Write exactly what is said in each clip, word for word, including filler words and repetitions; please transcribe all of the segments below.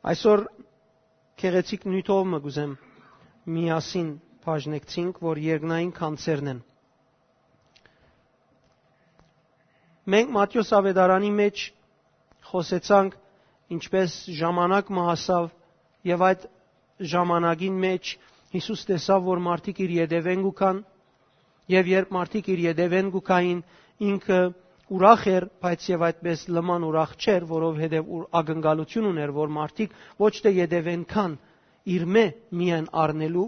Այսօր գեղեցիկ նիւթով մը կ'ուզեմ միասին բաժնեկցինք, որ երկնային գանձերն են։ Մենք Մատթէոս աւետարանի մէջ խօսեցանք, ինչպէս ժամանակ մը հասաւ, եւ այդ ժամանակին մէջ Յիսուս տեսաւ, որ մարդիկ իր ետեւէն կու գան, եւ երբ մարդիկ իր ետեւէն կու գային, ինքը ուրախ էր, բայց եւ այդպես լման ուրախ չէր, որովհետեւ ուր ակնկալություն ունէր, որ մարդիկ ոչ թէ ետեւէն գան, իրմէ միայն առնելու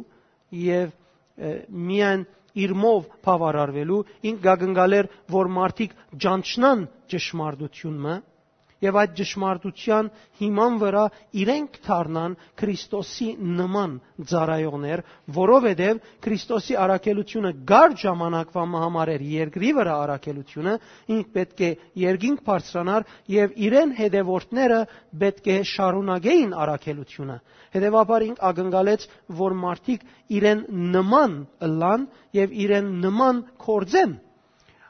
եւ, ը, միայն իրմով բաւարարուելու, ինք կակնկալեր, որ մարդիկ ճանչնան ճշմարտություն մը, եւ այդ ճշմարտության հիման վրայ իրենք դառնան Քրիստոսի նման ծառայողներ, որովհետեւ Քրիստոսի առաքելությունը կար ժամանակվա մը համար էր երկրի վրայ առաքելությունը, ինք պէտք է երկինք բարձրանար եւ իրեն հետեւորդները պէտք է շարունակեին առաքելությունը։ Հետեւաբար ինք ակնկալեց, որ մարդիկ իրեն նման ըլլան եւ իրեն նման գործեն։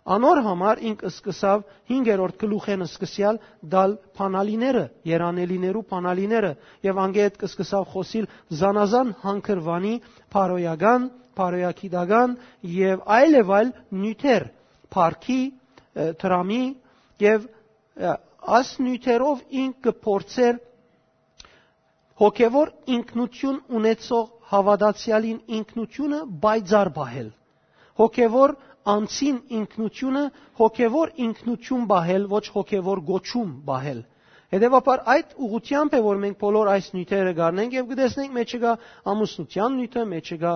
Անոր համար ինք սկսաւ հինգերորդ գլուխէն սկսեալ տալ բանալիները, երանելիներու բանալիները, եւ անկէ հետ սկսաւ խօսիլ զանազան հանգրուանի բարոյական, բարոյագիտական եւ այլ եւ այլ նիւթեր, փառքի, ը, դրամի եւ, ը, աս նիւթերով ինք կը փորձէր հոգեւոր ինքնություն ունեցող հաւատացեալին ինքնությունը պայծառ պահել, հոգեւոր անձին ինքնությունը հոգեւոր ինքնություն պահել, ոչ հոգեւոր կոչում պահել։ Հետեւաբար այդ ուղղությամբ է, որ մենք բոլոր այս նիւթերը կ'առնենք եւ կը տեսնենք, մեջը կայ ամուսնութեան նիւթը, մեջը կայ,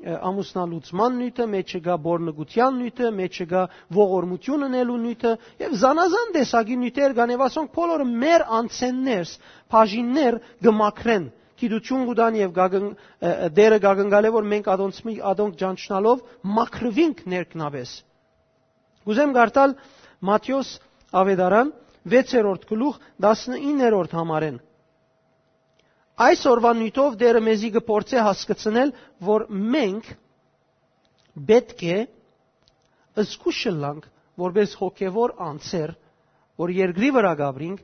ը, ամուսնալուծման նիւթը, մեջը կայ բորնկութեան նիւթը, մեջը կայ ողորմություն ընելու նիւթը եւ զանազան տեսակի նիւթեր կան եւ ասոնք բոլորը մեր անցէններ, բաժիններ կը մաքրեն, գիտություն կու տան եւ կակն-, ը, ը, Տէրը կակնկալէ, որ մենք ադոնց մի, ադոնք ճանչնալով մաքրուինք ներքնապէս։ Կ'ուզեմ կարդալ Մատթէոս աւետարան, վեցերորդ գլուխ, տասնիններորդ համարէն։ Այսօրվա նիւթով Տէրը մեզի կը փորձէ հասկցնել, որ մենք պէտք է զգուշ ըլլանք, որպէս հոգեւոր անձեր, որ երկրի վրայ կ'ապրինք,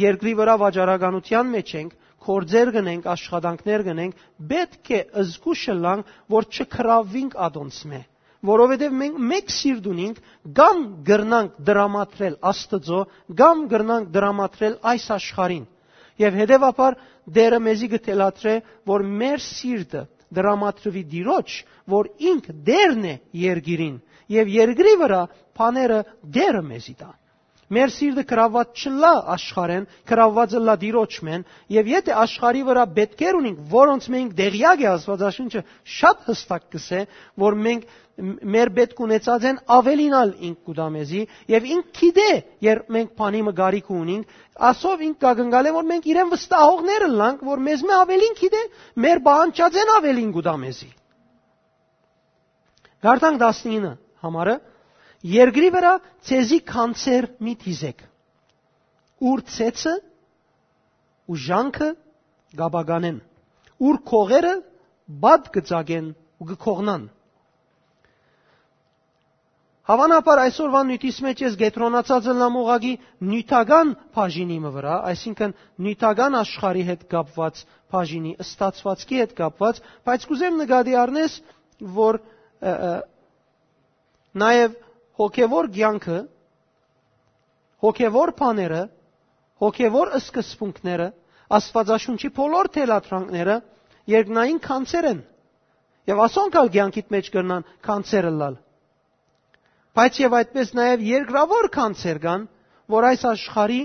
երկրի վրայ վաճառականութեան մէջ ենք, գործեր կ'ընենք, աշխատանքներ կ'ընենք, պէտք է զգուշ ըլլանք, որ չգրաւինք ադոնցմէ, որովհետեւ մենք մէկ սիրտ ունինք, կամ կրնանք դրամատրել Աստուծոյ, կամ կրնանք դրամատրել այս աշխարհին։ Եւ հետեւաբար Տէրը մեզի կը թելադրէ, որ մեր սիրտը դրամատրուի Տիրոջ, որ ինք Տէրն է երկիրին, եւ երկրի վրայ բաները Տէրը մեզի տայ։ Մեր սիրտը գրաւուած չըլլայ աշխարհէն, գրաւուած ըլլայ Տիրոջմէն, եւ եթէ աշխարհի վրայ պէտքեր ունինք, որոնց մենք տեղեակ է, Աստուածաշունչը շատ յստակ կ'ըսէ, որ մենք մ-, մեր պէտք ունեցածէն աւելին ալ ինք կու տայ մեզի, եւ ինք գիտէ, երբ մենք բանի մը կարիքը ունինք, ասով ինք կակնկալէ, որ մենք իրեն վստահողներ ըլլանք, որ մեզմէ աւելին գիտէ, մեր պահանջածէն աւելին կու տայ մեզի։ Կարդանք տասնինը համարը. «Երկրի վրայ ձեզի գանձեր մի դիզէք, ուր ցեցը ու ժանքը կ'ապականեն, ուր քողերը պատ կը ծակեն ու կը քողնան»։ Հաւանաբար այսօրվան նիւթիս մէջ ես կեդրոնացած ըլլամ ուղղակի նիւթական բաժինի մը վրայ, այսինքն նիւթական աշխարհի հետ կապուած բաժինի, ստացուածքի հետ կապուած, բայց կ'ուզեմ նկատի առնես, որ, ը, ը, նաեւ հոգեւոր կեանքը, հոգեւոր բաները, հոգեւոր սկզբունքները, Աստուածաշունչի բոլոր թելադրանքները երկնային գանձեր են, եւ ասոնք ալ կեանքիդ մէջ կրնան գանձեր ըլլալ։ Բայց եւ այդպես նաեւ երկրաւոր գանձեր կան, որ այս աշխարհի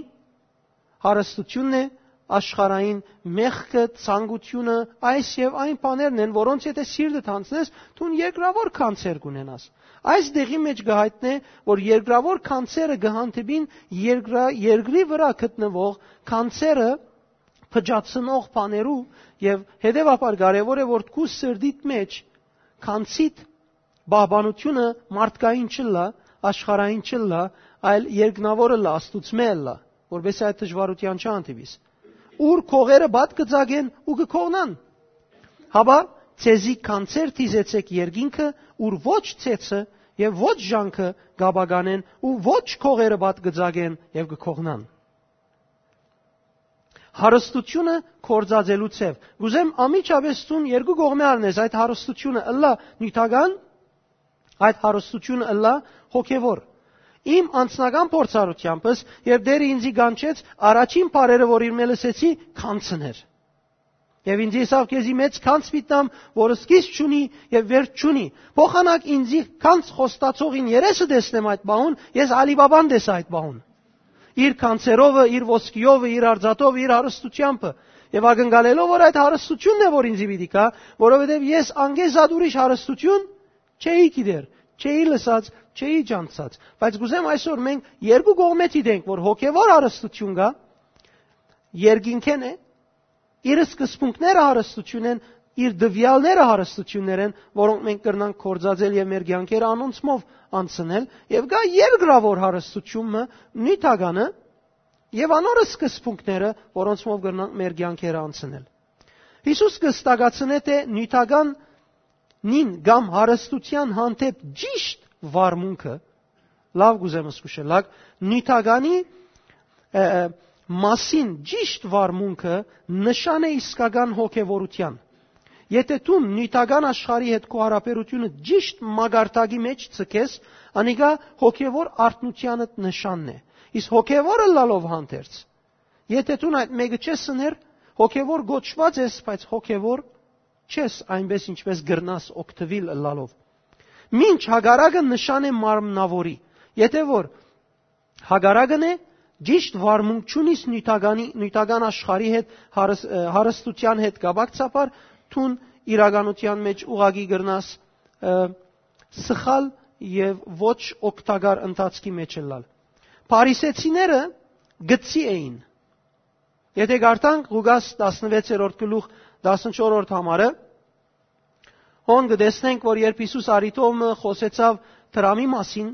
հարստությունն է, աշխարհային մեղքը, ցանկությունը, այս եւ այն բաներն են, որոնց եթե սիրտդ յանձնես, դուն երկրաւոր գանձեր կունենաս։ Այս դեղի մէջ կը հայտնէ, որ երկրաւոր գանձերը կը հանդիպին երկրա-, երկրի վրայ գտնուող գանձերը փճացնող բաներու, եւ հետեւաբար կարեւոր է, որ քու սրտիդ մէջ գանձիդ պահպանությունը մարդկային չըլլայ, աշխարհային չըլլայ, այլ երկնաւոր ըլլայ, Աստուծմէ ըլլայ, որպեսզի այդ դժուարութեան չհանդիպիս։ «Ուր քողերը պատ կը ծակեն ու կը քողնան»։ Հապա ձեզի գանձեր դիզեցէք երկինքը, ուր ոչ ցեցը եւ ոչ ժանքը կ'ապականեն ու ոչ քողերը պատ կը ծակեն եւ կը քողնան։ Հարստությունը կործածելու ձեւ։ Կ'ուզեմ անմիջապէս դուն երկու կողմէ առնես, այդ հարստությունը ըլլայ նիւթական, այդ հարստությունը ըլլայ հոգեվոր։ Իմ անձնական փորձառութեամբս, երբ Տէրը ինձի կանչեց, առաջին բառերը, որ իր մէ լսեցի, գանձն էր։ Եւ ինձ ըսաւ. «Քեզի մեծ գանձ պիտի տամ, որ սկիզբ չունի եւ վերջ չունի»։ Փոխանակ ինձի գանձ խոստացողին երեսը տեսնեմ այդ պահուն, ես Ալի Բաբան տեսայ այդ պահուն։ Իր գանձերովը, իր ոսկիովը, իր արծաթովը, իր հարստութեամբը։ Եւ ակնկալելով, որ այդ հարստությունն է, որ ինձի պիտի գայ, որովհետեւ ես անկէ զատ ուրիշ հարստություն չէի գիտեր, չէի լսած, չէի ճանչցած։ Բայց կ'ուզեմ այսօր մենք երկու կողմէ դիտենք, որ հոգեվոր հարստություն կայ, երկինքէն է, իր սկզբունքները հարստություն են, իր տուեալները հարստություններ են, որոնք մենք կրնանք կործածել եւ մեր կեանքերը անոնցմով անցնել, եւ կայ երկրաւոր հարստություն մը, նիւթականը, եւ անոր սկզբունքները, որոնցմով կրնանք մեր կեանքերը անցնել։ Յիսուս կը ստակացնէ, թէ նիւթական նին կամ հարստության հանդէպ ճիշտ վարմունքը, լաւ կ'ուզեմ զգուշել, լաք, նիւթականի, ը, ը, մասին ճիշտ վարմունքը նշան է իսկական հոգեվորության։ Եթե դուն նիւթական աշխարհի հետ քու յարաբերությունը ճիշտ մակարդակի մեջ ձգես, անիկա հոգեվոր արթնությանդ նշանն է։ Իսկ հոգեվոր ըլլալով հանդերձ, եթե դուն այդ մէկը չես ըներ, հոգեվոր կոչուած ես, բայց հոգեվոր չես, այնպես ինչպես կրնաս օգտուիլ ըլլալով։ Մինչ հակառակը նշան է մարմնաւորի։ Եթե որ հակառակն է, ճիշտ վարմունք չունիս նիւթականի, նիւթական աշխարհի հետ, հարս-, ը, հարստության հետ կապակցաբար, դուն իրականության մեջ ուղղակի կրնաս, ը, սխալ եւ ոչ օգտակար ընթացքի մեջ ըլլալ։ Փարիսեցիները գծի էին։ Եթե կարդանք Ղուկաս տասնվեցերորդ գլուխ տասնչորսերորդ համարը, հոն կը տեսնենք, որ երբ Յիսուս առիթով մը խօսեցաւ դրամի մասին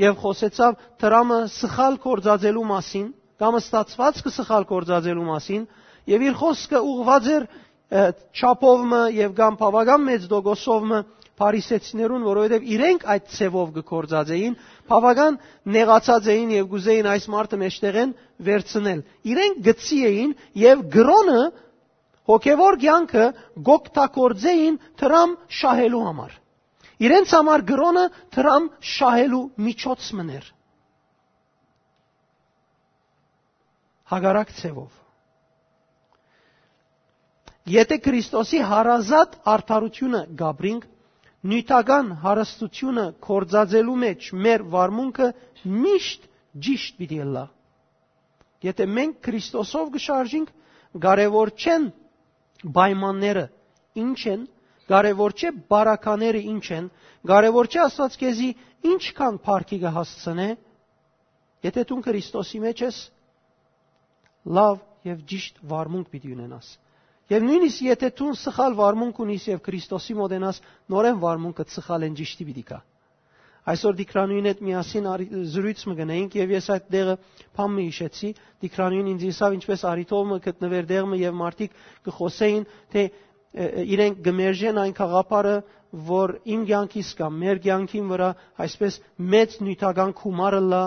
եւ խօսեցաւ դրամը սխալ կործածելու մասին, կամ ստացվածքը սխալ կործածելու մասին, եւ իր խօսքը ուղղուած էր, ը, չափով մը եւ կամ բաւական մեծ տոկոսով մը փարիսեցիներուն, որովհետեւ իրենք այդ ձևով կը կործածեին, բաւական նեղացած էին եւ կ'ուզեին այս մարդը մեջտեղէն վերցնել։ Իրենք գծի էին եւ կրոնը, հոգեվոր կեանքը կ'օգտագործեին դրամ շահելու համար։ Իրենց համար կրոնը դրամ շահելու միջոց մըն էր։ Հակառակ ձևով։ Եթե Քրիստոսի հարազատ արդարությունը կ'ապրինք, նիւթական հարստությունը կործածելու մեջ մեր վարմունքը միշտ ճիշտ պիտի ըլլայ։ Եթե մենք Քրիստոսով կը շարժինք, կարեւոր չեն պայմանները ինչ են, կարեւոր չէ բարակաները ինչ են, կարեւոր չէ Աստուած քեզի ինչքան փառքի կը հասցնէ, եթե դուն Քրիստոսի մեջ ես, լաւ եւ ճիշտ վարմունք պիտի ունենաս։ Եւ նոյնիսկ եթե դուն սխալ վարմունք ունիս եւ Քրիստոսի մօտենաս, նորէն վարմունքը սխալ են ճիշտի պիտի գայ։ Այսօր Տիգրանուին հետ միասին արի-, զրոյց մը գնայինք եւ ես այդ դեղը բան մը յիշեցի, Տիգրանուին ինձ ըսաւ, ինչպես առիթով մը գտնուեր դեղ մը եւ մարդիկ կը խօսէին, թէ, ը, ը, իրենք կը մերժեն այն գաղափարը, որ իմ կեանքիս կամ մեր կեանքին վրայ այսպես մեծ նիւթական գումար ըլլայ,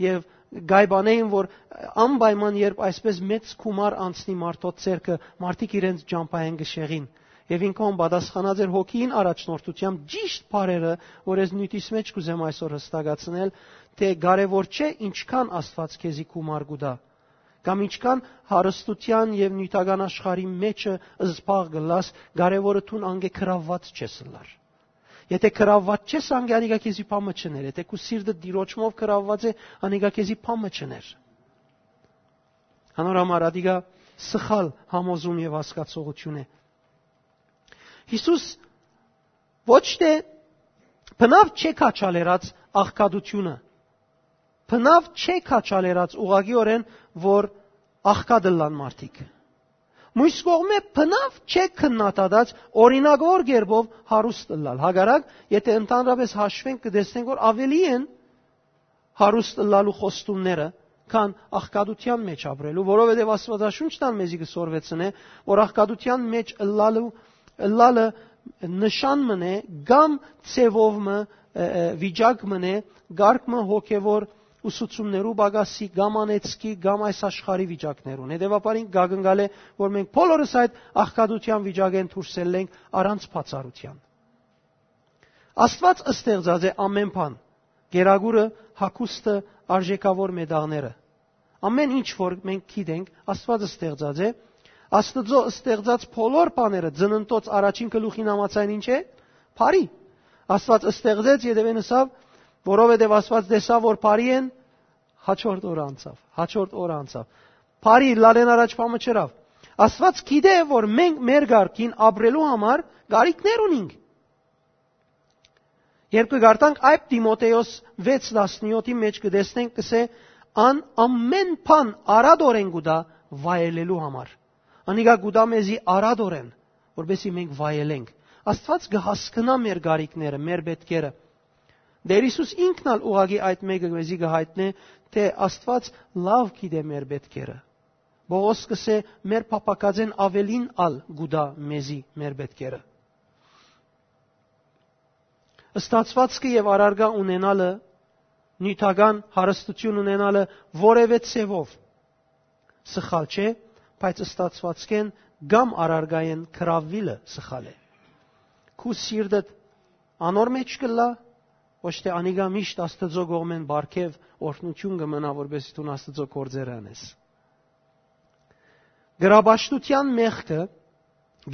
եւ գայբանեին, որ անպայման երբ այսպես մեծ գումար անցնի մարդոց ձեռքը, մարդիկ իրենց ճամբայէն կը շեղին։ Եւ ինքն պատասխանած էր հոգիին առաջնորդությամբ ճիշտ բառերը, որ ես նիւթիս մեջ կ'ուզեմ այսօր հստակացնել, թէ կարեւոր չէ ինչքան Աստուած քեզի գումար կու տայ, կամ ինչքան հարստության եւ նիւթական աշխարհի մեջը զբաղ կ'ըլլաս, կարեւորը դուն անկէ գրաւուած չես ըլլար։ Եթե գրաւուած չես, անկէ անիկա քեզի բան մը չըներ, եթե քու սիրտը Տիրոջմով գրաւուած է, անիկա քեզի բան մը չըներ։ Անոր համար ադիկա սխալ համոզում եւ հասկացողություն է։ Յիսուս ոչ թէ բնաւ չէ քաջալերած աղքատությունը, բնաւ չէ քաջալերած ուղղակիորեն, որ աղքատ ըլլան մարդիկ։ Մյուս կողմէ բնաւ չէ քննադատած օրինական կերպով հարուստ ըլլալ։ Հակառակ, եթե ընդհանրապես հաշվենք, կը տեսնենք, որ ավելի են հարուստ ըլլալու խոստումները, քան աղքատության մեջ ապրելու, որովհետեւ Աստուածաշունչն ալ մեզի կը սորվեցնէ, որ աղքատության մեջ ըլլալու, ըլլալը նշան մըն է, կամ ձևով մը, ը, ը, վիճակ մըն է, կարգ մը հոգեվոր ուսուցումներու պակասի, կամ անեծքի, կամ այս աշխարհի վիճակներուն։ Հետեւաբար ինք կակնկալէ, որ մենք բոլորս այդ աղքատութեան վիճակէն դուրս ելլենք առանց բացառութեան։ Աստուած ստեղծած է ամեն բան. կերակուրը, հագուստը, արժեքաւոր մետաղները։ Ամեն ինչ որ մենք գիտենք, Աստուած ստեղծած է։ Աստուծոյ ստեղծած բոլոր բաները, ծննդոց առաջին գլուխին համաձայն, ինչ է? Բարի։ Աստուած ստեղծեց, ետեւէն ըսաւ, որովհետեւ Աստուած տեսաւ, որ բարի են, հաջորդ օրը անցաւ, հաջորդ օրը անցաւ։ Բարի լալեն առաջ բան մը չըրաւ։ Աստուած գիտէ, որ մենք մեր կարգին ապրելու համար կարիքներ ունենք։ Երբ կը կարդանք այդ Տիմոթեոս վեց տասնեթի մեջ, կը տեսնենք, կսէ, «Ան ամեն բան արատորեն կու տայ վայելելու համար»։ Անիկա կու տայ մեզի արատորեն, որպեսզի մենք վայելենք։ Աստուած կը հասկնայ մեր կարիքները, մեր պետքերը։ Տէր Յիսուս ինքն ալ ուղղակի այդ մէկը մեզի կը յայտնէ, թէ Աստուած լաւ գիտէ մեր պետքերը։ Պողոս կսէ, մեր փափաքածէն աւելին ալ կու տայ մեզի մեր պետքերը։ Ստացուածքը եւ առարկայ ունենալը, նիւթական հարստութիւն ունենալը որեւէ ձեւով սխալ չէ, բայց ստացուածքէն կամ առարկայէն գրաւիլը սխալ է։ Քու սիրտդ անոր մեջ կ'ըլլայ, ոչ թէ անիկա միշտ Աստուծոյ կողմէն պարգեւ օրհնութիւն կը մնայ, որպեսզի դուն Աստուծոյ գործերը անես։ Կրապաշտութեան մեղքը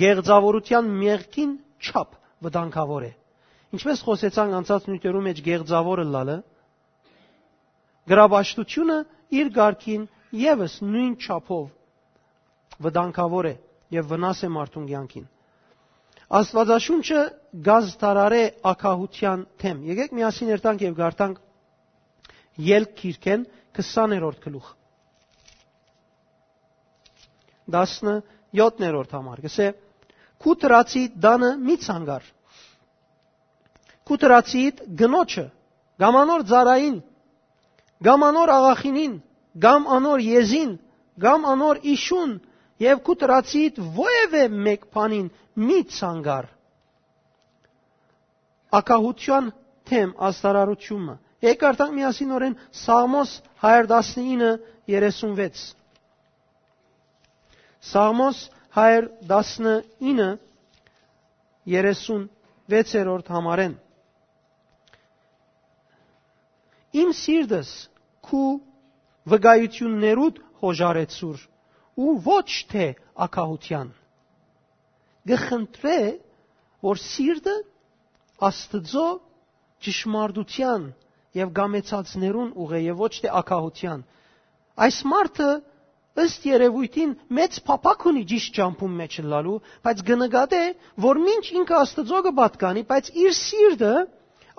կեղծաւորութեան մեղքին չափ վտանգաւոր է։ Ինչպես խօսեցանք անցած նիւթերու մեջ կեղծաւոր ըլլալը, կրապաշտութիւնը իր կարգին եւս նոյն չափով վտանգաւոր է եւ վնաս է մարդուն կեանքին։ Աստուածաշունչը կազդարարէ ակահութեան դէմ։ Եկէք միասին երթանք եւ կարդանք Ելք գիրքէն քսաներորդ գլուխ, տասնեթերորդ համար, կսէ. «Քու դրացի տանը մի ցանկար, քու դրացիդ կնոջը, կամ անոր ծառային, կամ անոր աղախինին, կամ անոր եզին, կամ անոր իշուն, եւ քու դրացիդ որեւէ մէկ բանին մի ցանկար»։ Ակահութեան դէմ ազդարարութիւնը։ Եկեք կարդանք միասին օրէն Սաղմոս հարիւր տասնինը երեսուն վեց։ Սաղմոս հարիւր տասնինը երեսուն վեցերորդ համարէն։ «Իմ սիրտս քու վկայութիւններուդ յօժարեցուր ու ոչ թէ ակահութեան»։ Կը խնդրէ, որ սիրտը Աստուծոյ ճշմարտութեան եւ կամեցածներուն ուղղէ եւ ոչ թէ ակահութեան։ Այս մարդը, ըստ երեւոյթին, մեծ փափաք ունի ճիշդ ճամբուն մէջ ըլլալու, բայց կը նկատէ, որ մինչ ինքը Աստուծոյ կը պատկանի, բայց իր սիրտը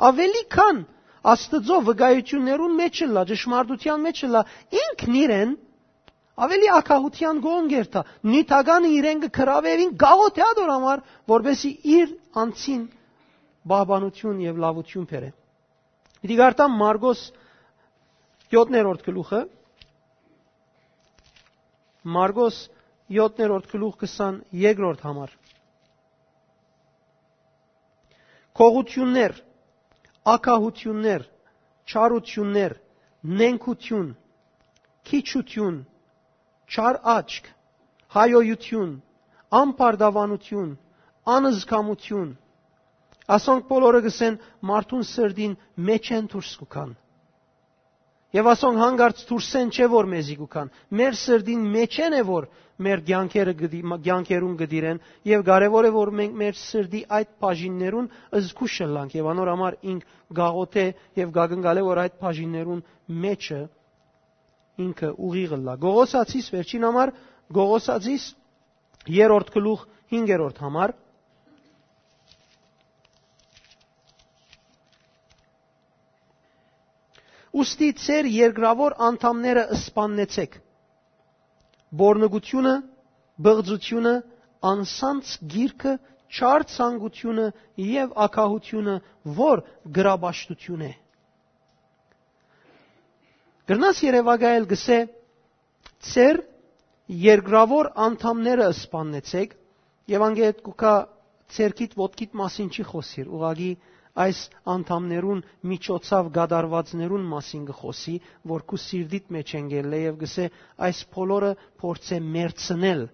աւելի քան Աստուծոյ վկայութիւններուն մէջ ըլլայ, ճշմարտութեան մէջ ըլլայ, ինքն իրեն աւելի ակահութեան կողմ կերթայ, նիւթականը իրեն կը գրաւէ եւ ինք կաղոթէ ատոր համար, որպեսզի իր անձին պահպանութիւն եւ լաւութիւն բերէ։ Պիտի կարդամ Մարկոս յոթերորդ գլուխը, Մարկոս յոթերորդ գլուխ, քսաներկրորդ համար։ Գողութիւններ, ակահութիւններ, չարութիւններ, նենգութիւն, քիչութիւն, չար աչք, հայոյութիւն, ամբարտավանութիւն, անզգամութիւն, ասոնք բոլորը, կսեն, մարդուն սրտին մէջէն դուրս կու գան։ Եւ ասոնք հանկարծ դուրսէն չէ, որ մեզի կու գան։ Մեր սրտին մէջէն է, որ մեր կեանքերը կը դի-, կեանքերուն կը դիրեն, եւ կարեւոր է, որ մենք մեր սրտի այդ բաժիններուն զգուշ ըլլանք, եւ անոր համար ինք գաղութ է եւ կակնկալե, որ այդ բաժիններուն մէջը ինքը ուղիղ ըլլայ։ Գողոսացիս վերջին համար, Գողոսացիս երրորդ գլուխ, հինգերորդ համար։ Ուստի ձեր երկրաւոր անդամները սպաննեցեք. բորնգութիւնը, բղծութիւնը, անսանց գիրքը, չար ցանկութիւնը եւ ակահութիւնը, որ գրապաշտութիւն է։ Կրնաս երեւակայել, կսէ, ձեր երկրաւոր անդամները սպաննեցեք, եւ անգետ կուքա, ձերքիդ ոտքիդ մասին չի խօսիր, ուղղակի այս անդամներուն միջոցաւ կատարուածներուն մասին կը խօսի, որ քու սիրտիդ մէջ են գելլէ եւ կսէ, այս բոլորը փորձէ մերցնել։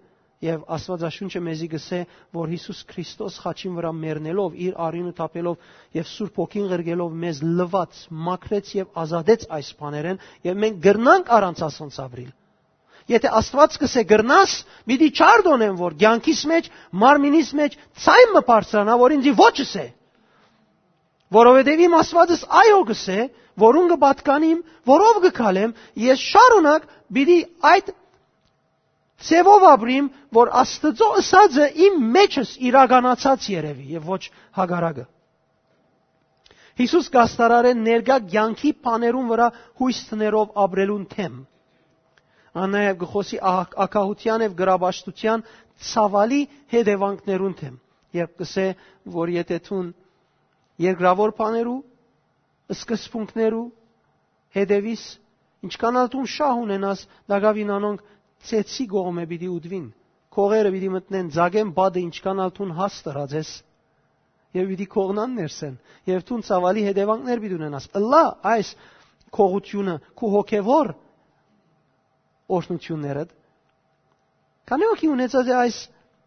Եւ Աստուածաշունչը մեզի կսէ, որ Յիսուս Քրիստոս խաչին վրայ մեռնելով, իր արիւնը թափելով եւ Սուրբ Հոգին ղրկելով մեզ լուաց, մաքրեց եւ ազատեց այս բաներէն, եւ մենք կրնանք առանց ասոնց ապրիլ։ Եթէ Աստուած կսէ կրնաս, պիտի չարդոնեմ, որ կեանքիս մէջ, մարմինիս մէջ ցայմ մը բարձրանայ, որ ինձի ոչ ըսէ։ Որովհետեւ իմ Աստուածս այո կսէ, որուն կը պատկանիմ, որով կը քալեմ, ես շարունակ պիտի այդ ձևով ապրիմ, որ Աստուծոյ ըսածը իմ մեջս իրականացած երեւի եւ ոչ հակառակը։ Յիսուս կ'աստարարէ ներկայ կեանքի բաներուն վրայ յոյս դնելով ապրելուն դէմ։ Ան նաեւ կը խօսի ահ-, ակահութեան եւ գրապաշտութեան ցաւալի հետեւանքներուն դէմ, երբ կսէ, որ եթէ դուն երկրաւոր բաներու, սկզբունքներու հետեւիս, ինչքան ալ դուն շահ ունենաս, տակաւին անոնք ծեծի կողմէ պիտի ուտուին, քողերը պիտի մտնեն, ձագեն պատը, ինչքան ալ դուն հաստ ըրած ես, եւ պիտի կողնան ներսեն, եւ դուն ցաւալի հետեւանքներ պիտի ունենաս։ Ըլլայ այս կողությունը քու հոգեվոր օրհնութիւններդ։ Քանի՞ հոգի ունեցած է այս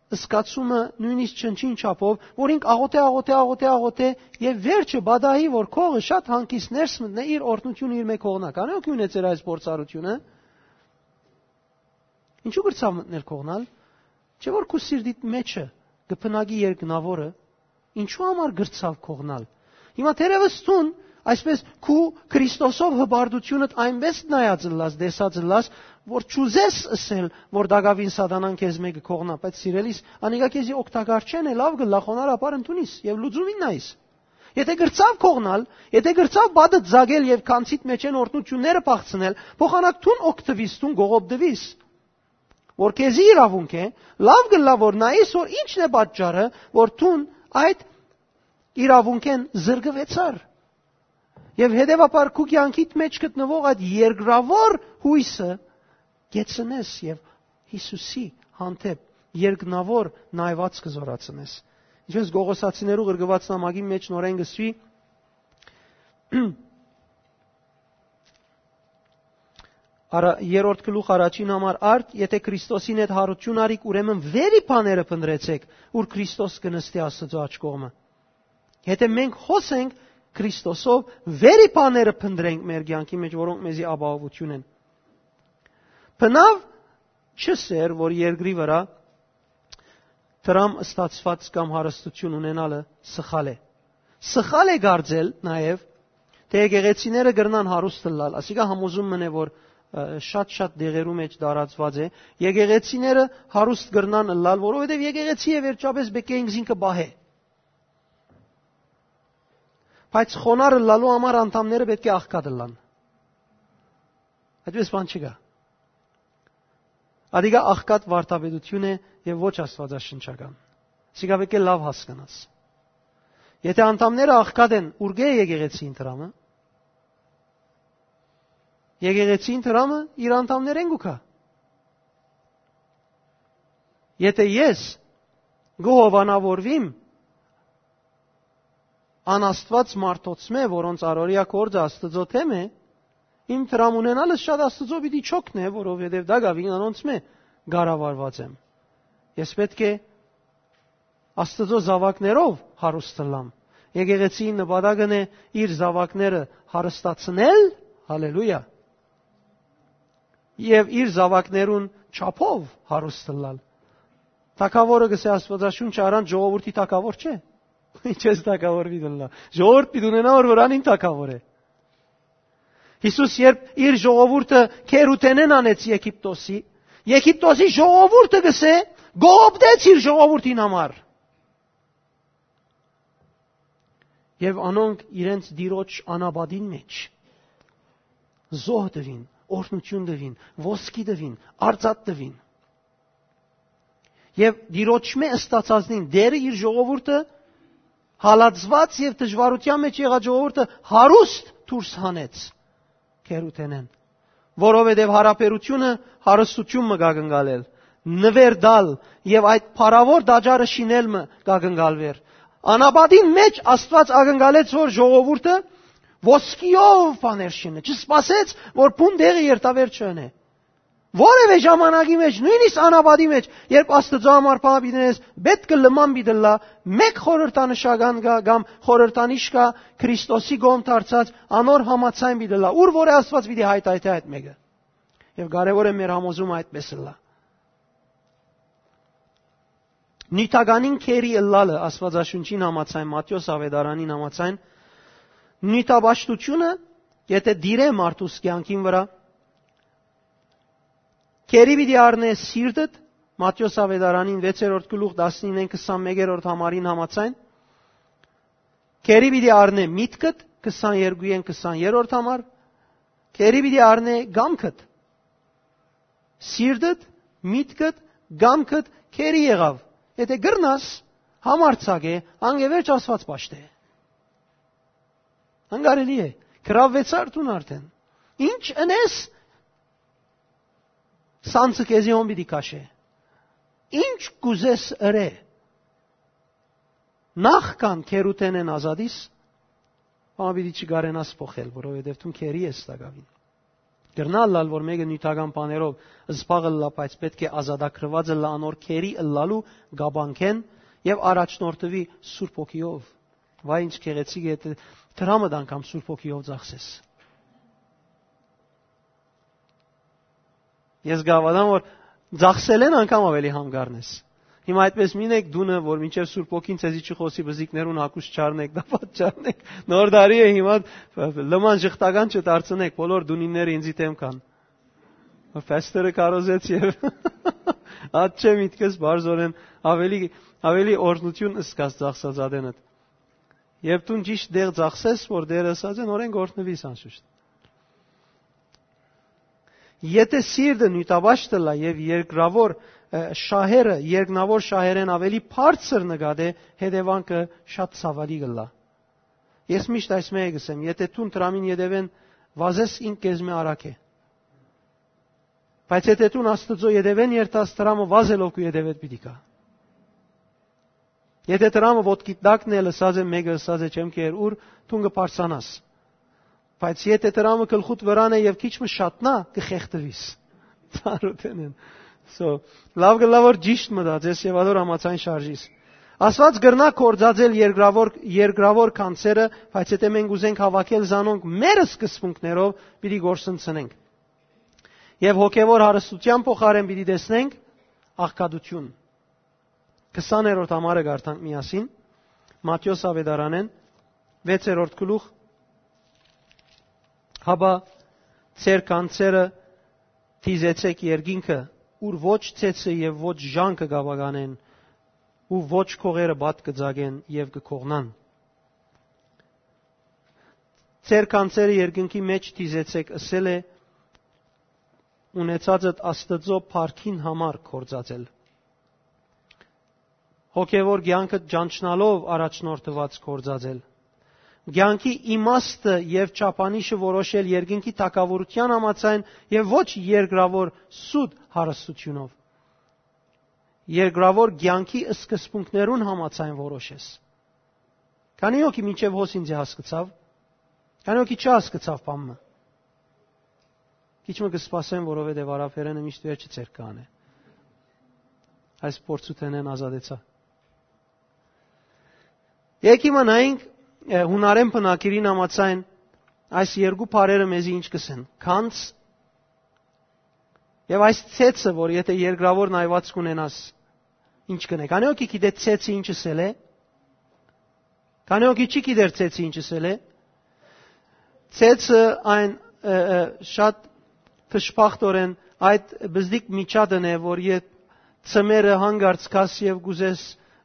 զգացումը նոյնիսկ չնչին չափով, որ ինք աղօթէ, աղօթէ, աղօթէ, աղօթէ, եւ վերջը պատահի, որ կողը շատ հանգիստ ներս մտնէ, իր օրհնութիւնը իր մէ կողնայ։ Քանի՞ հոգի ունեցեր այս փորձառութիւնը։ Ինչու՞ կրցաւ մտնել կողնալ։ Չէ՞ որ քու սիրտիդ մեջը կը բնակի երկնաւորը, ինչու համար կրցաւ կողնալ։ Հիմա թերեւս դուն այսպես քու Քրիստոսով հպարտութիւնդ այնպես նայած ըլլաս, տեսած ըլլաս, որ չուզես ըսել, որ տակաւին սատանան քեզ մէկը կողնայ, բայց սիրելիս, անիկա քեզի օգտակար չեն է, լաւ կը լախոնար ապար ընդունիս եւ լուծումին նայիս։ Եթէ կրցաւ կողնալ, եթէ կրցաւ պատը ձագել եւ քանցիդ մեջեն օրհնութիւնները փախցնել, փոխանակ դուն օգտվիս, դուն կողոպտվիս, որ քեզի իրաւունք է, լաւ կ'ըլլայ որ նայես, որ ինչն է պատճառը, որ դուն այդ իրաւունքէն զրկուեցար։ Եւ հետեւաբար քու կեանքիդ մէջ գտնուող այդ երկրաւոր յոյսը կեցնես եւ Յիսուսի հանդէպ երկնաւոր նայվածքը զորացնես։ Ինչպես Կողոսացիներու ղրկուած նամակին մէջ նորէն կսուի, արա-, երրորդ գլուխ առաջին համար արդ, եթէ Քրիստոսին հետ յարութիւն արիք, ուրեմն վերի բաները փնտրեցէք, ուր Քրիստոս կը նստի Աստուծոյ աջ կողմը։ Եթէ մենք հոս ենք Քրիստոսով, վերի բաները փնտրենք մեր կեանքի մէջ, որոնք մեզի ապահովութիւն են։ Բնաւ չսեր, որ երկրի վրայ դրամ ստացուած կամ հարստութիւն ունենալը սխալ է։ Սխալ է կարծել նաեւ, թէ եկեղեցիները կրնան հարուստ ըլլալ, ասիկա համոզում մըն է, որ, ը, շատ-շատ դեղերու մէջ տարածուած է, եկեղեցիները հարուստ կրնան ըլլալ, որովհետեւ եկեղեցի է, վերջապէս պէտք է ինքզինքը պահէ։ Բայց խոնար ըլլալու համար անդամները պէտք է աղքատ ըլլան։ Այդպես բան չկայ։ Ադիկա աղքատ վարդապետութիւն է եւ ոչ աստուածաշնչական։ Սիկա պէտք է լաւ հասկնաս։ Եթէ անդամները աղքատ են, ուրկէ՞ է եկեղեցին դրամը։ Եկեղեցին դրամը իր անդամներէն կու գայ։ Եթէ ես կը հովանավորվիմ անաստուած մարդոցմէ, որոնց առօրեայ գործը Աստուծոյ դէմ է, իմ դրամ ունենալս շատ Աստուծոյ պիտի չօգնէ, որովհետեւ տակաւին անոնցմէ կառավարուած եմ։ Ես պէտք է Աստուծոյ զաւակներով հարուստ ըլլամ։ Եկեղեցին նպատակն է իր զաւակները հարստացնել, հալելույա, եւ իր զաւակներուն չափով հարուստ ըլլալ։ Թագաւորը, կսէ Աստուածաշունչը, առանց ժողովուրդի թագաւոր չէ։ Ինչպես թագաւոր պիտի ըլլայ։ Ժողովուրդ պիտի ունենայ, որ վրանին թագաւոր է։ Յիսուս երբ իր ժողովուրդը քերութենէն անեց Եգիպտոսի, Եգիպտոսի ժողովուրդը, կսէ, կողոպտեց իր ժողովուրդին համար։ Եւ անոնք իրենց տիրոջ անապատին մէջ զոհ տուին, օրհնութիւն տուին, ոսկի տուին, արծաթ տուին։ Եւ տիրոջմէ ըստացածնին դերը իր ժողովուրդը, հալածուած եւ դժուարութեան մէջ եղած ժողովուրդը հարուստ դուրս հանեց քերութենէն, որովհետեւ յարաբերութիւնը հարստութիւն մը կակնկալել, նուեր տալ եւ այդ փառաւոր տաճարը շինել մը կակնկալուեր։ Անապատին մէջ Աստուած ակնկալեց, որ ժողովուրդը ոսկիով բաներ շինէ, չսպասեց, որ բուն տեղը երթաւեր չընէ։ Որևէ ժամանակի մէջ, նոյնիսկ անապատի մէջ, երբ Աստուծոյ համար բան պիտի ընես, պէտք է լման պիտի ըլլայ, մէկ խորհրդանշական կայ կամ խորհրդանիշ կայ, Քրիստոսի կողմ դարձած, անոր համաձայն պիտի ըլլայ, ուր որ է Աստուած պիտի հայթայթէ այդ մէկը։ Եւ կարեւոր է մեր համոզումը այդպես ըլլայ։ Նիւթականին գերի ըլլալը, Աստուածաշունչին համաձայն, Մատթէոս Աւետարանին համաձայն, նիւթապաշտութիւնը, եթէ տիրէ մարդուս կեանքին վրայ, գերի պիտի առնէ սիրտդ, Մատթէոս Աւետարանին վեցերորդ գլուխ, տասնինէն քսանմէկերորդ համարին համաձայն, գերի պիտի առնէ միտքդ, քսաներկուէն քսաներորդ համար, գերի պիտի առնէ կամքդ, սիրտդ, միտքդ, կամքդ գերի եղաւ։ Եթէ կրնաս, համարձակ է, անկէ վերջ Աստուած պաշտէ։ Անկարելի է, գրաւեցար դուն արդեն։ Ինչ ընես, սանձը քեզի հոն պիտի քաշէ։ Ինչ կ'ուզես ըրէ, նախքան գերութենէն ազատիս, բան պիտի չկարենաս փոխել, որովհետեւ դուն գերի ես տակաւին։ Կրնայ ըլլալ, որ մէկը նիւթական բաներով զբաղ ըլլայ, բայց պէտք է ազատագրուած ըլլայ անոր գերի ըլլալու կապանքէն եւ առաջնորդուի Սուրբ Հոգիով։ Վայ, ինչ գեղեցիկ է, դրամդ անգամ Սուրբ Հոգիով ծախսես։ Ես կհաւատամ, որ ծախսելէն անգամ աւելի համ կ'առնես։ Հիմա այդպես մի յետ դունը, որ մինչեւ Սուրբ Հոգին ձեզի չխօսի, բզիկներուն հագուստ չառնէք, տապատ չառնէք։ Նոր տարի է հիմա, լման ժխտական չդարձնէք, բոլոր դունինները ինձի դէմ կան։ Փաստերը կարոզեց եւ ատ չէ միտքս բարձորեն աւելի, աւելի օրհնութիւն ըսկաց ծախսած ատենդ։ Երբ դուն ճիշտ դեղ ծախսես, որ Տերը ըսած է, նորեն կ'օրհնուիս անշուշտ։ Եթէ սիրտը նիւթապաշտ ըլլայ եւ երկրաւոր, ը, շահերը, երկնաւոր շահերէն աւելի բարձր նկատէ, հետեւանքը շատ ցաւալի կ'ըլլայ։ Ես միշտ այս մէկը կ'ըսեմ, եթէ դուն դրամին ետեւէն վազես, ինք քեզմէ արագ է։ Բայց եթէ դուն Աստուծոյ ետեւէն երթաս, դրամը վազելով քու ետեւէդ պիտի գայ։ Եթէ դրամը ոտքիդ տակն է, լսած է մէկը, ըսած է, չեմ կեր ուր, դուն կը բարձրանաս։ Բայց եթէ դրամը գլխուդ վրան է եւ քիչ մը շատնայ, կը խեղդուիս։ Ծառուտենեն։ So, լաւ կ'ըլլայ, որ ճիշտ մտածես եւ ատոր համաձայն շարժիս։ Աստուած կրնայ գործածել երկրաւոր, երկրաւոր գանձերը, բայց եթէ մենք ուզենք հաւաքել զանոնք մեր սկզբունքներով, պիտի գործընծնենք։ Եւ հոգեւոր հարստութեան փոխարէն պիտի տեսնենք աղքատութիւն։ Քսաներորդ համարը կարդանք միասին, Մատթէոս Աւետարանէն, վեցերորդ գլուխ, հապա ձեր գանձերը դիզեցէք երկինքը, ուր ոչ ցեցը եւ ոչ ժանգը կ'ապականեն, ու ոչ քողերը պատ կը ծակեն եւ կը քողնան։ Ձեր գանձերը երկնքի մէջ դիզեցէք, ըսել է, ունեցածդ Աստուծոյ փառքին համար գործածել։ Հոգեւոր կեանքը ճանչնալով առաջնորդուած գործածել։ Կեանքի իմաստը եւ չափանիշը որոշել երկնքի թագաւորութեան համաձայն եւ ոչ երկրաւոր սուտ հարստութիւնով։ Երկրաւոր կեանքի սկզբունքներուն համաձայն որոշես։ Քանի՞ հոգի մինչեւ հոս ինձի հասկցաւ, քանի՞ հոգի չհասկցաւ բան մը։ Քիչ մը կը սպասեմ, որովհետեւ արաբերէնը միշտ վերջը ձեր կանէ։ Այս փորձութենէն ազատեցայ։ Եկի մնայինք, ը, յունարեն բնակիրին համաձայն այս երկու բառերը մեզի ինչ կ'ըսեն։ Քանց եւ այս ցեցը, որ եթէ երկրաւոր նայուած կունենաս, ինչ կ'ընէ։ Քանի՞ հոգի գիտէ ցեցը ինչ ըսել է։ Քանի՞ հոգի չի գիտեր ցեցը ինչ ըսել է։ Ցեցը այն, ը, ը, շատ դժբախտորեն այդ բզդիկ միջատն է, որ երբ ծմերը հանգարց կաս եւ կ'ուզես,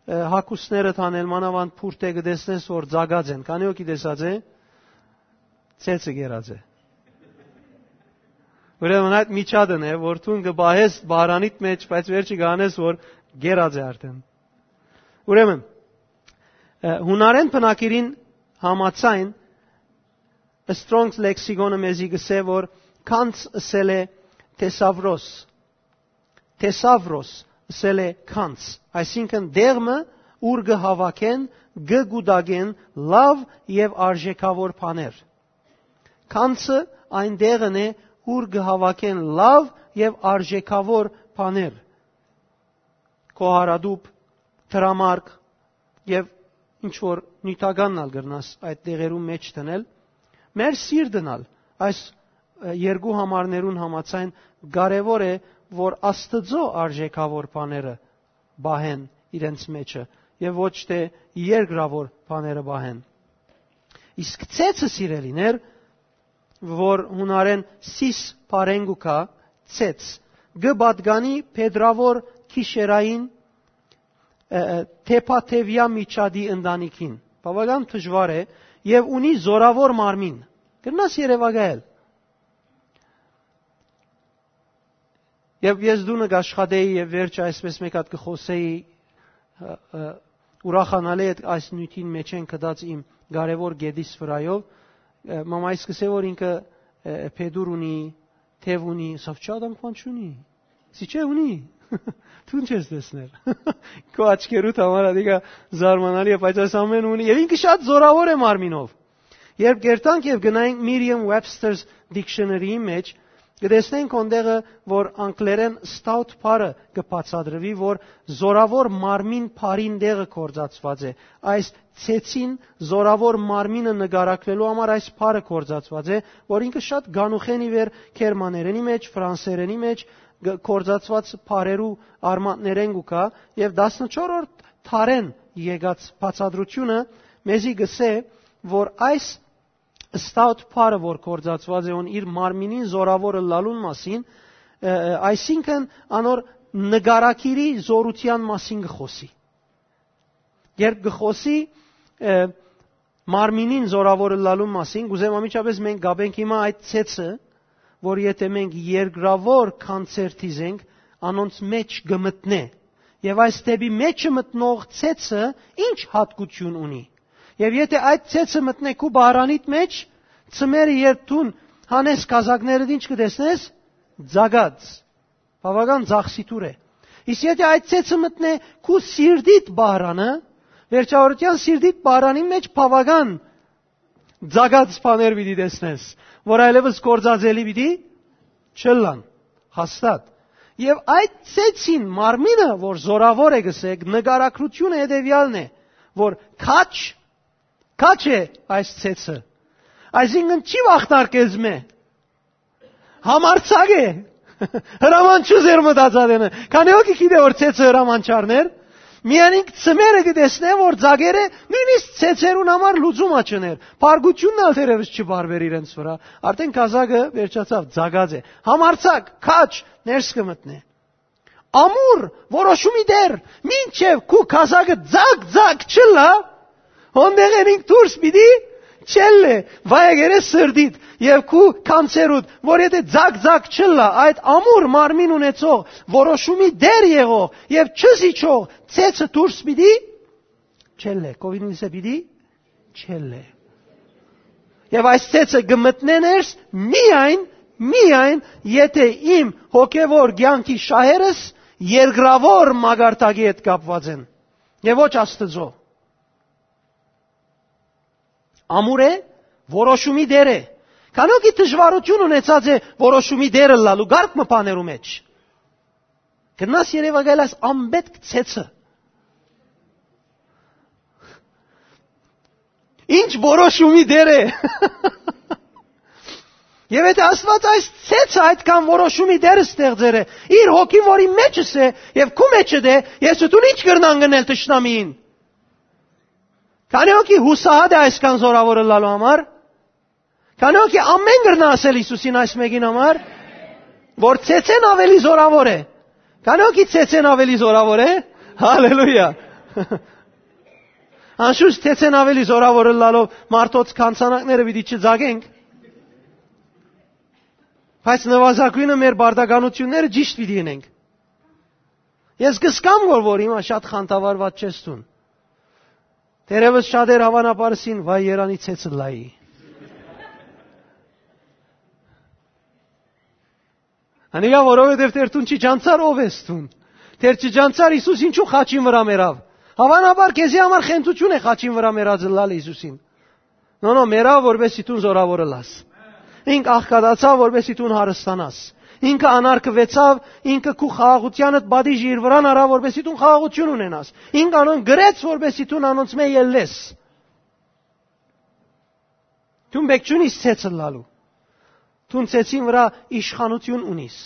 ը, հագուստները տանել, մանաւանդ փուրթ է, կը տեսնես, որ ծակած են։ Քանի՞ հոգի տեսած է, ցեցը գերած է։ Ուրեմն այդ միջատն է, որ դուն կը պահես բարանիդ մեջ, բայց վերջը կ'անես, որ գերած է արդեն։ Ուրեմն, ը, յունարեն բնակիրին համաձայն, Strong's Lexicon-ը մեզի կ'ըսէ, որ քանց ըսել է թեսավրոս։ Թեսավրոս ըսել է քանց, այսինքն՝ դեղ մը, ուր կը հաւաքեն, կը կուտակեն լաւ եւ արժեքաւոր բաներ։ Գանձը այն տեղն է, ուր կը հաւաքեն լաւ եւ արժեքաւոր բաներ։ Քոհարատուփ, դրամարկ եւ ինչ որ նիւթականն ալ կրնաս այդ տեղերուն մէջ դնել։ Մեր սիրտն ալ այս, ը, երկու համարներուն համաձայն կարեւոր է, որ Աստուծոյ արժեքաւոր բաները պահեն իրենց մէջը եւ ոչ թէ երկրաւոր բաները պահեն։ Իսկ ցեցը, սիրելիներ, որ յունարէն սիս բառէն կու գայ, ցեց, կը պատկանի փետրաւոր գիշերային, ը, ը, թեփաթեւեայ միջատի ընտանիքին։ Բաւական դժուար է եւ ունի զօրաւոր մարմին։ Կրնաս երեւակայել։ Եւ ես տունը կաշխատեի եւ վերջը այսպես մէկ հատ կը խօսէի, ը, ը, ուրախանալի այդ, այս նիւթին մէջէն գտած իմ կարեւոր գետիս վրայով, ը, մամայ սկսե որ ինքը, ը, փետուր ունի, թեւ ունի, սա չի, ադամ քան չունի։ Սի չէ, ունի։ Դուն չես տեսներ։ Քո աչքերուդ համար ատիկա զարմանալի է, բայց այս ամեն ունի եւ ինքը շատ զօրաւոր է մարմինով։ Երբ կերտանք եւ գնայինք Merriam-Webster's Dictionary-ի մէջ, կը տեսնենք հոն տեղը, որ անգլերէն stout բառը կը բացատրուի, որ զօրաւոր մարմին բառին տեղը գործածուած է։ Այս ցեցին զօրաւոր մարմինը նկարագրելու համար այս բառը գործածուած է, որ ինքը շատ գանուխեն ի վեր գերմաներենի մէջ, ֆրանսերենի մէջ գ-, գործածուած բառերու արմատներէն կու գայ, եւ տասնչորրորդ դարէն եկած բացատրութիւնը մեզի կ'ըսէ, որ այս stout բառը, որ գործածուած է հոն իր մարմինին զօրաւոր ըլլալուն մասին, ը, ը, այսինքն անոր նկարագիրի զօրութեան մասին կը խօսի։ Երբ կը խօսի, ը, մարմինին զօրաւոր ըլլալուն մասին, կ'ուզեմ անմիջապէս մենք կապենք հիմա այդ ցեցը, որ եթէ մենք երկրաւոր կոնցերտի զենք, անոնց մէջ կը մտնէ։ Եւ այս դէպի մէջը մտնող ցեցը ի՞նչ յատկութիւն ունի։ Եւ եթէ այդ ցեցը մտնէ քու բահրանիդ մէջ, ծմերը երբ դուն հանես կազակներդ, ի՞նչ կը տեսնես։ Ձագած։ Բաւական ձախսիթուր է։ Իսկ եթէ այդ ցեցը մտնէ քու սիրտիդ բահրանը, վերջավորութեան սիրտիդ բահրանի մէջ բաւական ձագած բաներ պիտի տեսնես, որ այլեւս գործածելի պիտի չըլլան, հաստատ։ Եւ այդ ցեցին մարմինը, որ զօրաւոր է, կ'ըսենք, նկարագրութիւնը հետեւեալն է, որ քաջ, քաջ է այս ցեցը։ Այսինքն չի վախտար կեզմէ։ Համարձակ է։ Հրաման չի զերմտած ատենը։ Քանի՞ հոգի գիտէ որ ցեցը հրաման չառներ։ Միայն ինք ծմերը կը տեսնէ որ ձագերը նոյնիսկ ցեցերուն համար լուծում ա չներ։ Բարկութիւնն ալ թերեւս չբարբեր իրենց վրայ։ Արդեն կազակը վերջացաւ, ձագած է։ Համարձակ, քաջ, ներս կը մտնէ։ Ամուր, որոշումի դեր, մինչեւ քու կազակը ձագ-ձագ չըլլայ, հոն տեղէն ինք դուրս պիտի չելլէ, վայ եկերե սրտիդ եւ քու կանցերուդ, որ եթէ ձագ-ձագ չըլլայ, այդ ամուր մարմին ունեցող, որոշումի դեր եղող եւ չզիջող ցեցը դուրս պիտի չելլէ, կովինիսը պիտի չելլէ։ Եւ այս ցեցը կը մտնէ ներս միայն, միայն եթէ իմ հոգեվոր կեանքի շահերս երկրաւոր մակարդակի հետ կապուած են եւ ոչ Աստուծոյ։ Ամուր է, որոշումի դեր է։ Քանի՞ հոգի դժուարութիւն ունեցած է որոշումի դեր ըլլալու կարգ մը բաներու մէջ։ Կրնաս երեւակայել այս անպետք ցեցը։ Ինչ որոշումի դեր է։ Եվ եթե Աստված այս ցեցը այդքան որոշումի դեր ստեղծեր է, իր հոգին, որի մեջս է, եւ քու մեջդ է, ես ու դուն ինչ կրնան գնել թշնամիին։ Քանի՞ հոգի հուսահատ է այսքան զորավոր ըլլալու համար։ Քանի՞ հոգի ամեն կրնա ասել Հիսուսին այս մեկին համար, որ ցեցեն ավելի զորավոր է։ Քանի՞ հոգի ցեցեն ավելի զորավոր է։ Հալելույա։ Անշուշտ, ցեցեն ավելի զորավոր ըլլալով մարդոց քանցանակները պիտի չձագենք, բայց նվազագույնը մեր բարդականությունները ճիշտ պիտի ընենք։ Ես կսկամ, որ, որ հիմա շատ խանդավառված չես դուն։ Թերևս շատեր, հավանաբար, սին, վայ, երանի ցեցը լայի։ Անիկա, որովհետև դեր դուն չի ճանցար ով ես դուն։ Դեր չի ճանցար Հիսուս ինչու խաչին վրա մեռավ։ Հաւանաբար քեզի համար խենթութիւն է խաչին վրայ մեռած ըլլալը Յիսուսին։ Նո, նո, մեռաւ, որպէս զի դուն զօրաւոր ըլլաս։ Ինք աղքատացաւ, որպէս զի դուն հարստանաս։ Ինքը անարգուեցաւ, ինքը քու խաղաղութեանդ պատիժը իր վրան առաւ, որպէս զի դուն խաղաղութիւն ունենաս։ Ինք անոնք գրեց, որպէս զի դուն անոնցմէ ելլես։ Դուն պէք չունիս ցեցը ըլլալու։ Դուն ցեցին վրայ իշխանութիւն ունիս։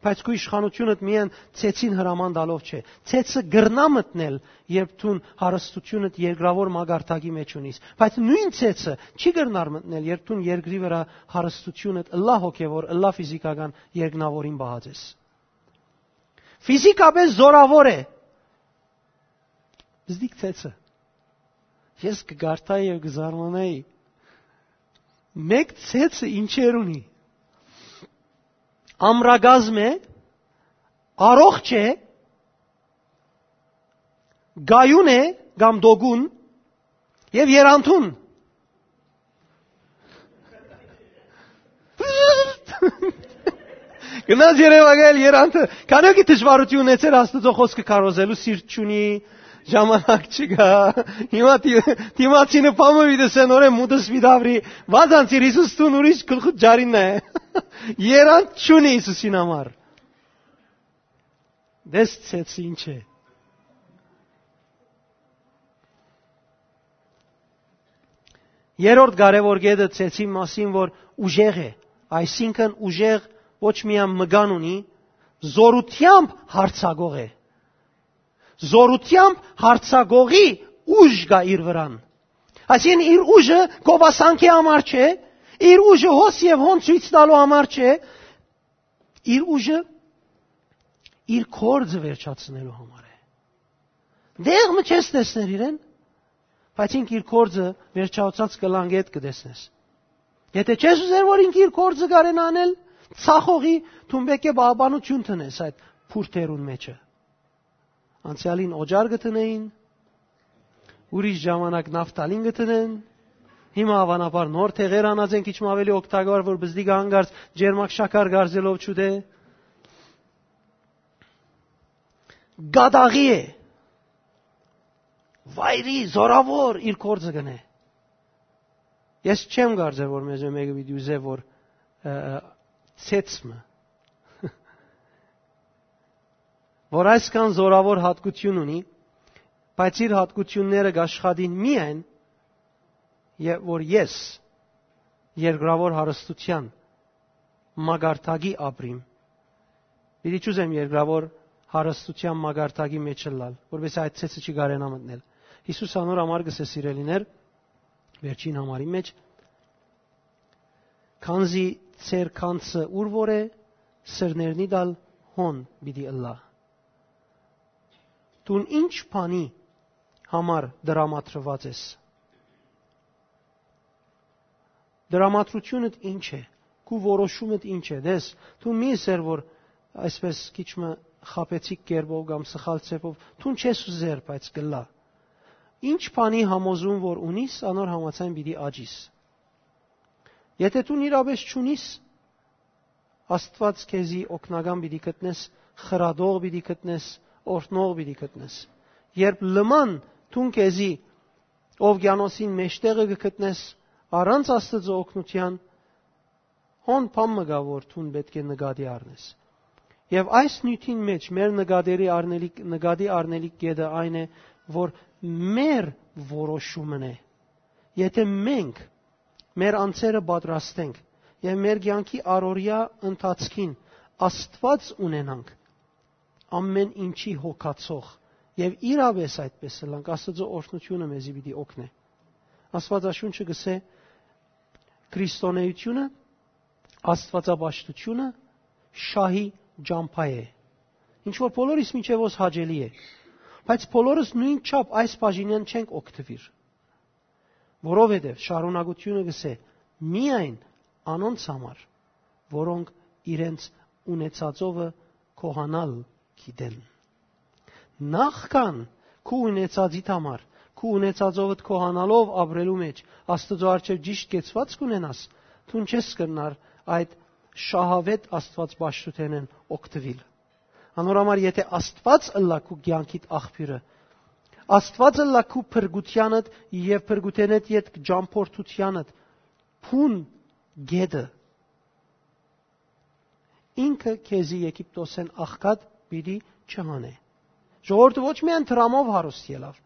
Բայց քու իշխանութիւնդ միայն ցեցին հրաման տալով չէ։ Ցեցը կրնայ մտնել, երբ դուն հարստութիւնդ երկրաւոր մակարդակի մէջ ունիս։ Բայց նոյն ցեցը չի կրնար մտնել, երբ դուն երկրի վրայ հարստութիւնդ ըլլայ հոգեւոր, ըլլայ ֆիզիքական երկնաւորին պահած ես։ Ֆիզիքապէս զօրաւոր է։ Զդիկ ցեցը։ Ես կը կարդայի եւ կը զարմանայի։ Մէկ ցեցը ինչեր ունի։ Ամրակազմ է, առողջ է, գայուն է կամ դոգուն եւ երանդուն։ Գնաց երեւակայել երանդը։ Քանի՞ օքի դժվարութիւն ունեցեր Աստուծոյ խօսքը քարոզելու, սիրտ չունի, ժամանակ չկայ։ Հիմա դի-, դիմացինը բամը պիտի սեն օրէ մուտս պիտի աբրի, վազանցիր Յիսուս, դուն ուրիշ գլխուդ ջարինն է։ Երանդ չունի Յիսուսին համար։ Դες ցեցը ինչ է։ Երրորդ կարեւոր կետը ցեցին մասին, որ ուժեղ է, այսինքն ուժեղ ոչ միայն մկան ունի, զորութեամբ հարցակող է։ Զորութեամբ հարցակողի ուժ կայ իր վրան։ Այսինքն իր ուժը գովասանքի համար չէ, իր ուժը հոս եւ հոն ցոյց տալու համար չէ, իր ուժը իր կորձը վերջացնելու համար է։ Դեղ մը չես տեսներ իրեն, բայց ինք իր կորձը վերջացած կլան գետ կտեսնես։ Եթե չես ուզեր, որ ինք իր կորձը կարենա անել, ցախողի, դուն պէք է պահպանություն տնես այդ փուրթերուն մեջը։ Անցեալին օճար կը տնեին, ուրիշ ժամանակ նավթալին կը տնեն, հիմա հավանաբար նոր թեղեր անած են քիչ մը ավելի օգտակար, որ բզդիկը հանկարծ ջերմակ շաքար գարզելով չուտէ։ Գադաղի է, վայրի, զորաւոր իր կորձը կնե։ Ես չեմ կարծեր, որ մեզմէ մէկը պիտի ուզէ, որ, ը, ը, ցեցմը, որ այսքան զորաւոր հատկություն ունի, բայց իր հատկությունները կաշխատին միայն, եւ որ ես երկրաւոր հարստության մակարդակի ապրիմ, պիտի չուզեմ երկրաւոր հարստության մակարդակի մեջ ըլլալ, որպեսզի այդ ցեցը չի կարենա մտնել։ Յիսուս անոր համար կ'ըսէ, սիրելիներ, վերջին համարի մեջ, քանզի ձեր քանցը ուր որ է, սրներնի դալ հոն պիտի ըլլայ։ Դուն ինչ բանի համար դրամատրուած ես։ Դրամատրությունդ ինչ է, քու որոշումդ ինչ է, դες, դու մի ըսեր, որ այսպես քիչ մը խաբեցիկ կերպով կամ սխալ ձևով, դուն չես ուզեր, բայց կլա։ Ինչ բանի համոզում որ ունիս, անոր համաձայն պիտի աճիս։ Եթե դու իրապես չունիս, Աստված քեզի օգնական պիտի գտնես, խրատող պիտի գտնես, օրհնող պիտի գտնես։ Երբ լման դուն քեզի օվկիանոսին մեջտեղը կը գտնես, առանց Աստծո օգնության, հոն բան մը կայ, որ դուն պէտք է նկատի առնես։ Եւ այս նիւթին մեջ մեր նկատի առնելիք, նկատի առնելիք կետը այն է, որ մեր որոշումն է։ Եթե մենք մեր անձերը պատրաստենք եւ մեր կեանքի առօրեայ ընթացքին Աստված ունենանք, ամեն ինչի հոգացող, եւ իրապես այդպես ըլլանք, Աստծո օրհնությունը մեզի պիտի օգնէ։ Աստվածաշունչը կ'ըսէ. «Քրիստոնեությունը, աստվածապաշտությունը շահի ճամբայ է»։ Ինչ որ բոլորիս մինչեւ ոս հաճելի է, բայց բոլորս նոյնչափ այս բաժինեն չենք օգտուիր, որովհետեւ շարունակությունը կ'ըսէ. «Միայն անոնց համար, որոնք իրենց ունեցածովը գոհանալ գիտեն»։ Նախքան քու ունեցածիդ համար, քու ունեցածովդ գոհանալով ապրելու մեջ Աստուծոյ առջեւ ճիշդ կեցուածք ունենաս, դուն չես կրնար այդ շահաւէտ Աստուածապաշտութենէն օգտուիլ։ Անոր համար, եթե Աստուած ըլլայ քու կեանքիդ աղբիւրը, Աստուած ըլլայ քու փրկութեանդ եւ փրկութենէդ ետք ճամբորդութեանդ բուն գետը, ինքը քեզի Եգիպտոսէն աղքատ պիտի չհանէ։ Ժողովուրդը ոչ միայն դրամով հարուստ ելաւ,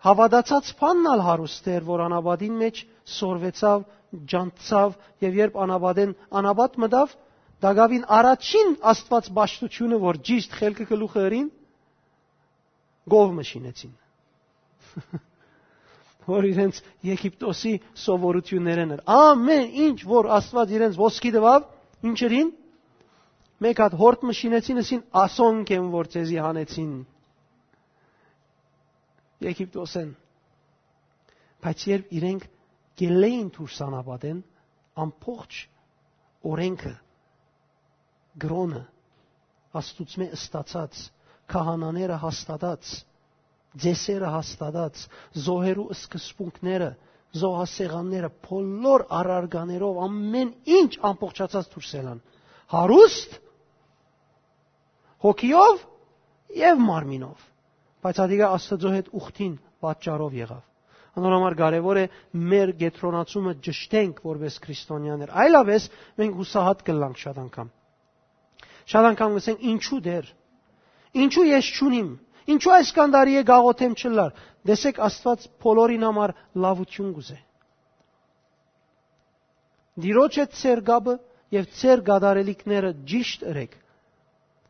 հաւատացած բանն ալ հարուստ էր, որ անապատին մէջ սորվեցաւ, ջանցցաւ, եւ երբ անապատեն անապատ մտաւ, տակաւին առաջին Աստուած պաշտութիւնը, որ ճիշդ խելքը գլուխը ըրին, կով մը շինեցին։ Որ իրենց Եգիպտոսի սովորութիւններէն էր։ Ամեն ինչ, որ Աստուած իրենց ոսկի տուաւ, ինչ ըրին, մէկ հատ հորդ մը շինեցին, ըսին, «Ասոնք են, որ ձեզի հանեցին Եգիպտոսէն»։ Բայց երբ իրենք գելլեին դուրս անապատեն, ամբողջ օրենքը, կրօնը, Աստուծմէ ստացած, քահանաները հաստատած, ծեսերը հաստատած, զոհերու սկզբունքները, զոհասեղանները, բոլոր առարկաներով, ամեն ինչ ամբողջացած դուրս ելան։ Հարուստ, հոգիով եւ մարմինով, բայց ատիկա Աստուծոյ հետ ուխտին պատճառով եղաւ։ Անոր համար կարեւոր է մեր կեդրոնացումը ճշտենք որպէս քրիստոնեաներ։ Այլապես մենք յուսահատ կ'ըլլանք շատ անգամ։ Շատ անգամ կ'ըսենք, «Ինչու Տէր, ինչու ես չունիմ, ինչու այսքան տարի է գաղութեմ չըլլար»։ Տեսեք, Աստուած բոլորին համար լաւութիւն կ'ուզէ։ Տիրոջ հետ ձեր կապը եւ ձեր կատարելիքները ճիշտ ըրեք,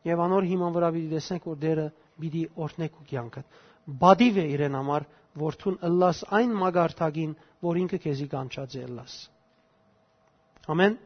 եւ անոր հիման վրայ պիտի տեսնեք, որ Տէրը պիտի օրհնէ քու կեանքդ։ Պատիւ է իրեն համար, որ դուն ըլլաս այն մակարդակին, որ ինքը քեզի կանչած է ըլլաս։ Ամեն։